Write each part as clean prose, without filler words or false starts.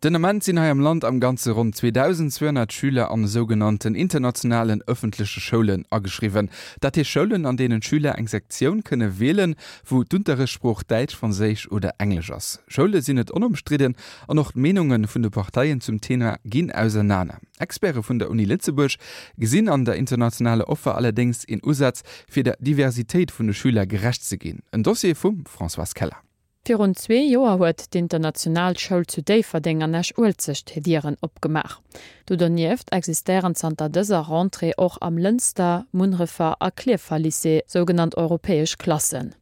Den Ament sinn hei am Land am Ganze ronn 2.200 Schüler an esougenannten internationalen ëffentleche Schoulen ageschriwwen. Dat heescht Schoulen, an deenen d'Schüler eng Sektioun kënne wielen, wou d'Unterrichtssprooch Däitsch, Franséisch oder Englesch ass. Schoule sinn net onomstridden an och d'Meenunge vun de Parteien zum Thema ginn ausernaner. Experte vun der Uni Lëtzebuerg gesinn an der internationaler Offer allerdéngs een Usaz, fir der Diversitéit vun de Schüler gerecht ze ginn. En Dossier vum Françoise Keller. Virun zwee Joer huet d'International Schoul zu Déifferdeng an Esch-Uelzecht hir Dieren opgemaach. Do donieft existéieren zanter dëser Rentrée och am Lënster, Munnerefer a Klierfer Lycée sougenannt europäesch Klassen.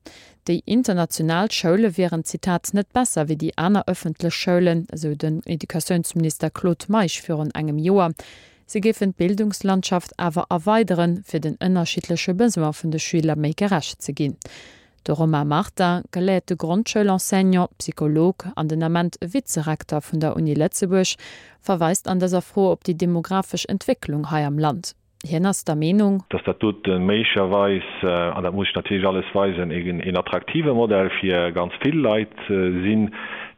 Déi international Schoule wieren, Zitat, net besser wéi déi aner ëffentlech Schoulen, esou den Educatiounsminister Claude Meisch virun engem Joer. Si géifen d'Bildungslandschaft awer erweideren, fir den ënnerschiddleche Besoin vun de Schüler méi gerecht ze ginn. De Romain Martin, geléierte Grondschoulenseignant, Psycholog an den Ament Vizerekter vun der Uni Lëtzebuerg, verweist an dëser Fro op déi demografesch Entwécklung hei am Land. Hien ass der Meenung. Dass dat dote méiglecherweis, an dat muss ech natierlech alles weisen, een attraktive Modell fir ganz vill Leit sinn,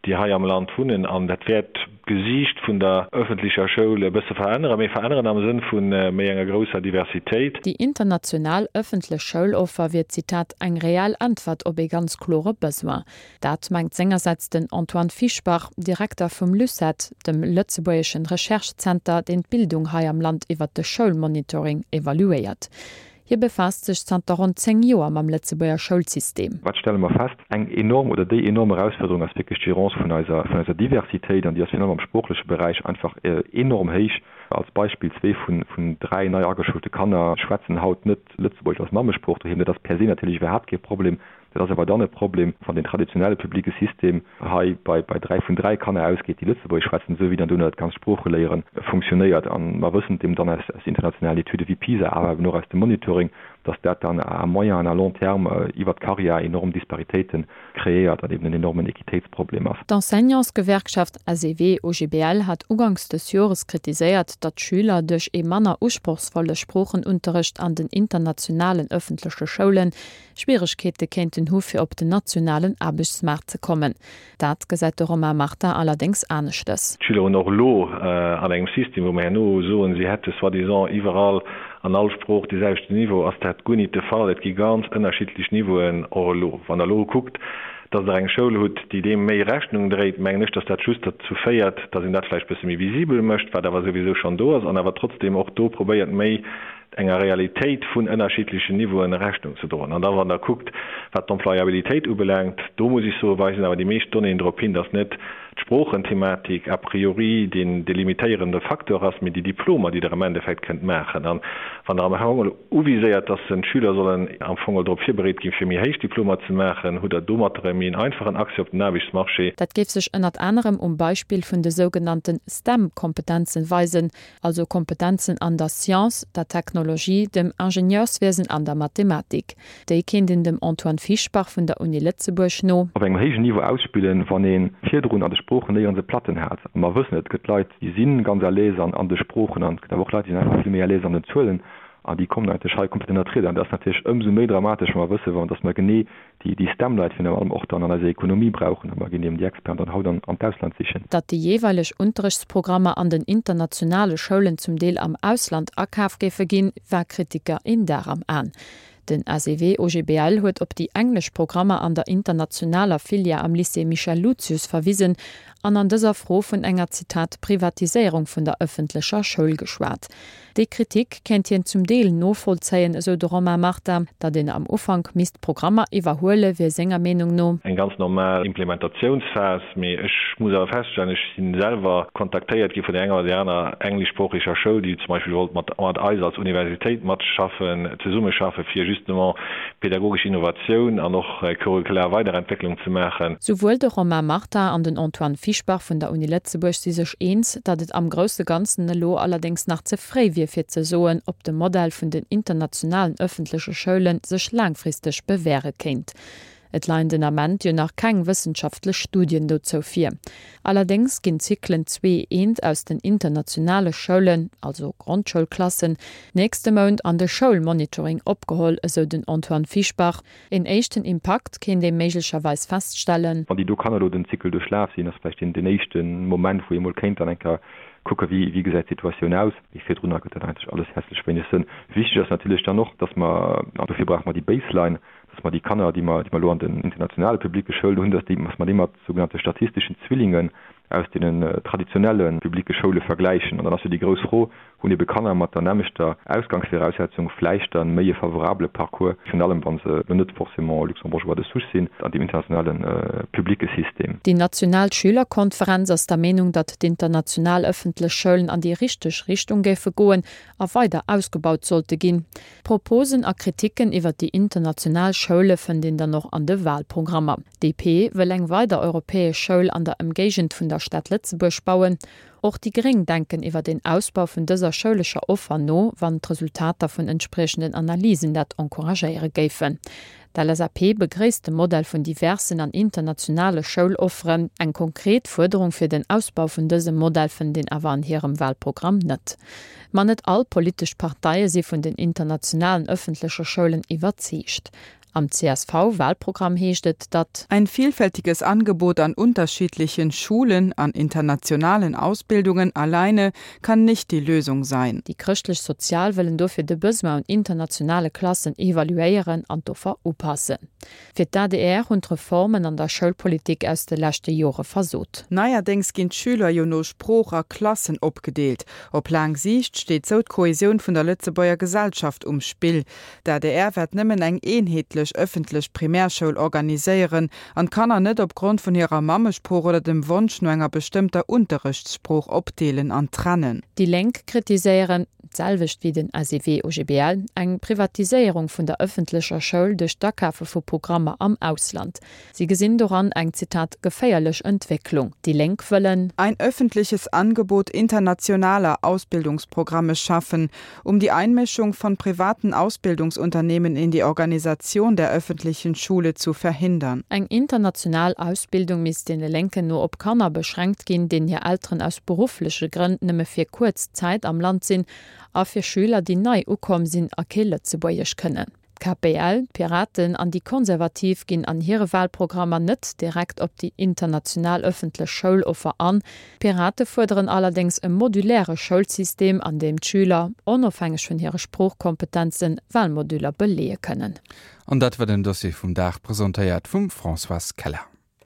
déi hei am Land wunnen. An dat wäert d'Gesiicht vun der ëffentlecher Schoul e bësse veränneren, mee veränneren am Sënn vu méi enger grousser Diversitéit. Déi international ëffentlech Schouloffer wier, Zitat, eng reell Äntwert op ee ganz klore Besoin. Dat mengt sengersäits den Antoine Fischbach, Direkter vum LUCET, dem lëtzebuergeschen Recherche-Zenter, deen d'Bildung hei am Land iwwert de Schoulmonitoring evaluéiert. Hie befaasst sech zanter ronn 10 Joer mam Lëtzebuerger Schoulsystem. Wat stelle mer fest? Eng enorm oder déi enorm Erausfuerderung ass wierklech d'Gérance vun eiser, vun eiser Diversitéit an déi ass virun allem am sproochleche Beräich einfach enorm héich. Als Beispill, Zwee vun, vun dräi nei ageschoulte Kanner schwätzen haut net Lëtzebuergesch als Mammesprooch doheem. Dat ass per se natierlech iwwerhaapt kee Problem. Dat ass awer dann e Problem, wann den traditionelle publique System hei bei bei 3 vun 3 Kanner ausgeet, déi Lëtzebuergesch schwätzen, esou wéi dann dono dat ganzt Sproocheléiere funktionéiert. A mer wëssen et eben dann aus aus internationalen Etüde wéi PISA, awer eben och aus dem Monitoring, dass dat dann à moyen an à long terme iwwert d'Carrière enorm Disparitéite kreéiert an eben en enormen Equitéitsproblem ass. D'Enseignantsgewerkschaft SEW-OGBL hat uganks des Jores kritiséiert, datt d'Schüler duerch ee manner usprochsvolle Sproochenunterrecht an den internationalen ëffentleche Schoulen Schwieregkeete kéinten hu fir op den nationalen Aarbechtsmaart ze kommen. Dat gesäit de Romain Martin allerdéngs aneschtes. D'Schüler hunn och elo an engem System, wou mer herno soen, si hätte soi-disant iwwerall an all Sprooch dee selwechten Niveau, ass dat guer nit de Fall. Et gi ganz ënnerschiddlech Niveauen och elo. Wann Der elo kuckt, dass Der eng Schoul hutt, déi deem méi Rechnung dréit, mengen ech, dass dat just derzou féiert, dass een dat vläicht bësse méi visibel mécht, wat awer souwisou schonn do ass, an awer trotzdem och do probéiert, méi enger Realitéit vun ënnerschiddlechen Niveauen Rechnung ze droen. An da wann Der kuckt, wat d'Employabilitéit ubelaangt, do muss ech soen, weisen awer déi meescht Donnéeën drop hin, dass net d'Sproochenthematik a priori deen delimitéierende Facteur ass, mee déi Diplomer, déi Der am Endeffekt kënnt maachen. An wann Der am Fong elo uviséiert, dass d'Schüler sollen am Fong drop virbereet ginn, fir méi héich Diplomer ze maachen, hutt Der domatter e méi en einfachen Accès op den Aarbechtsmarché. Dat géif sech ënnert anerem um Beispill vun de sougenannte STEM-Kompetenzen weisen, also Kompetenzen an der Science, der Technologie, dem Ingenieurswiesen an der Mathematik. Déi kéint een dem Antoine Fischbach vun der Uni Lëtzebuerg no. Op engem héijen Niveau ausspillen, wann ee virdrun an de Sproochen néierens e Platten hat. A mer wëssen, et gëtt Leit, déi si ganz à l'aise an de Sproochen an et gëtt awer och Leit, déi sinn einfach vill méi à l'aise an den Zuelen an déi kommen eigentlech hei komplett ënnert d'Rieder. An dat ass natierlech ëmsou méi dramatesch, wa mer wëssen, wa dass mer genee déi déi STEM-Leit virun allem och dann an eiser Ekonomie brauchen, a mer ginn eben déi Experten dann haut an an d'Ausland sichen. Datt déi jeeweileg Unterrichtsprogrammer an den internationale Schoulen zum Deel am Ausland akaf géife ginn, war Kritiker een Dar am An. Den SEW-OGBL huet op déi englesch Programmer an der internationaler Filière am Lycée Michel Lucius verwisen an an dëser Fro vun enger, Zitat, Privatiséierung vun der ëffentlecher Schoul geschwat. Déi Kritik kéint hien zum Deel novollzéien, esou de Romain Martin. Datt een am Ufank misst Programmer iwwerhuele wier senger Meenung no. Eng ganz normal Implementatiounsphas. Mee ech muss awer feststellen, ech si selwer kontaktéiert gi vun der enger oder där aner engleschsproocheger Schoul, déi zum Beispill wollt mat eis als Universitéit matschaffen, zesummeschaffen, fir justement pädagogesch Innovatioun an och curricular Weiderentwécklung ze maachen. Souwuel de Romain Martin an den Antoine Fischbach vun der Uni Lëtzebuerg si sech eens, datt et am grousse Ganzen elo allerdéngs nach ze fréi wier fir ze soen, ob de Modell vun den internationalen ëffentleche Schoule sech laangfristeg bewäre kéint. Et leien den Ament jo nach keng wëssenschaftlech Studien dozou vir. Allerdéngs ginn d'Zyklen zwee eent aus den internationale Schoulen, also Grondschoulklassen, nächste Mount an de Schoulmonitoring opgeholl, esou den Antoine Fischbach. Een éischten Impakt kéint ee méiglecherweis feststellen. Wann déi do Kanner elo den Zykel duerchlaf sinn, ass vläicht deen éischte Moment, wou ee mol kéint dann eng Kéier kucken, wéi gesäit d'Situatioun aus. Mee virdrunner gëtt dat eigentlech alles hässlech wéineg Sënn. Wichteg ass natierlech dann och, dass mer, an dofir brauche mer déi Baseline, dass mer déi Kanner, déi mer, déi mer elo an den internationale publicke Schoulen hunn, dass déi, dass mer déi mat sougenannte statistischen Zwillingen aus deenen traditionelle publicke Schoule vergläichen. An dann ass jo déi grouss Fro, Hunn ebe Kanner mat der nämmlechter Ausgangsviraussetzung vläicht dann méi e favorabele Parcours, virun allem wa se elo net forcément Luxembourgeois de souche sinn, an deem internationale publicke System? Déi national Schülerkonferenz ass der Meenung, datt d'international ëffentlech Schoulen an déi richteg Richtung géife goen a weider ausgebaut sollte ginn. Proposen a Kriticken iwwer déi international Schoule fënnt een dann och an de Walprogrammer. DP wëll eng weider europäesch Schoul an der Ëmgéigend vun der Stad Lëtzebuerg bauen. Och déi Gréng denken iwwer een Ausbau vun dëser schoulescher Offer no, wann d'Resultater vun entspriechenden Analysen dat encouragéiere géifen. D'LSAP begréisst de Modell vun diversen an internationale Schoulofferen. Eng konkret Fuerderung fir den Ausbau vun dësem Modell fënnt een awer an hirem Walprogramm net. Ma net all politesch Parteie si vun den internationalen ëffentleche Schoulen iwwerzeegt. Am CSV-Wahlprogramm heescht et, datt. Ein vielfältiges Angebot an unterschiedlichen Schulen, an internationalen Ausbildungen alleine kann nicht die Lösung sein. Déi Chrëschtlech-Sozial wëllen dofir de Besoin un internationale Klassen evaluéieren an d'Offer upassen. Fir d'ADR hunn d'Reformen an der Schoulpolitik aus de leschte Jore versot. Neierdéngs ginn d'Schüler jo no Sprooch a Klassen opgedeelt. Op laang Siicht steet sou d'Kohesioun vun der Lëtzebuerger Gesellschaft um Spill. D'adr wäert nëmmen eng eenheetlech ëffentlech Primärschoul organiséieren an d'Kanner net op Grond vun hirer Mammesprooch oder dem Wonsch no enger bestëmmter Unterrechtssprooch opdeelen an trennen. Déi Lénk kritiséieren, d'selwecht wéi den SEW-OGBL, eng Privatiséierung vun der ëffentlecher Schoul duerch d'Akafe vu Programmer am Ausland. Si gesinn doran eng, Zitat, geféierlech Entwécklung. Déi Lénk wëllen. Ein öffentliches Angebot internationaler Ausbildungsprogramme schaffen, um die Einmischung von privaten Ausbildungsunternehmen in die Organisation der öffentlichen Schule zu verhindern. Eng international Ausbildung misst deene Lénken no op Kanner beschränkt ginn, deenen hir Elteren aus beruffleche Grënn nëmme fir kuerz Zäit am Land sinn, a fir Schüler, déi nei ukomm sinn a kee Lëtzebuergesch kënnen. D'KPL, d'Piraten an déi Konservativ ginn an hire Wahlprogrammer net direkt op déi international ëffentlech Schouloffer an. D'Pirate fuerderen allerdéngs e moduläre Schoulsystem, an deem d'Schüler, onofhängeg vun hire Sproochkompetenzen, Wahlmoduler beleeë kënnen. An dat war den Dossier vum Dag, presentéiert vum Françoise Keller.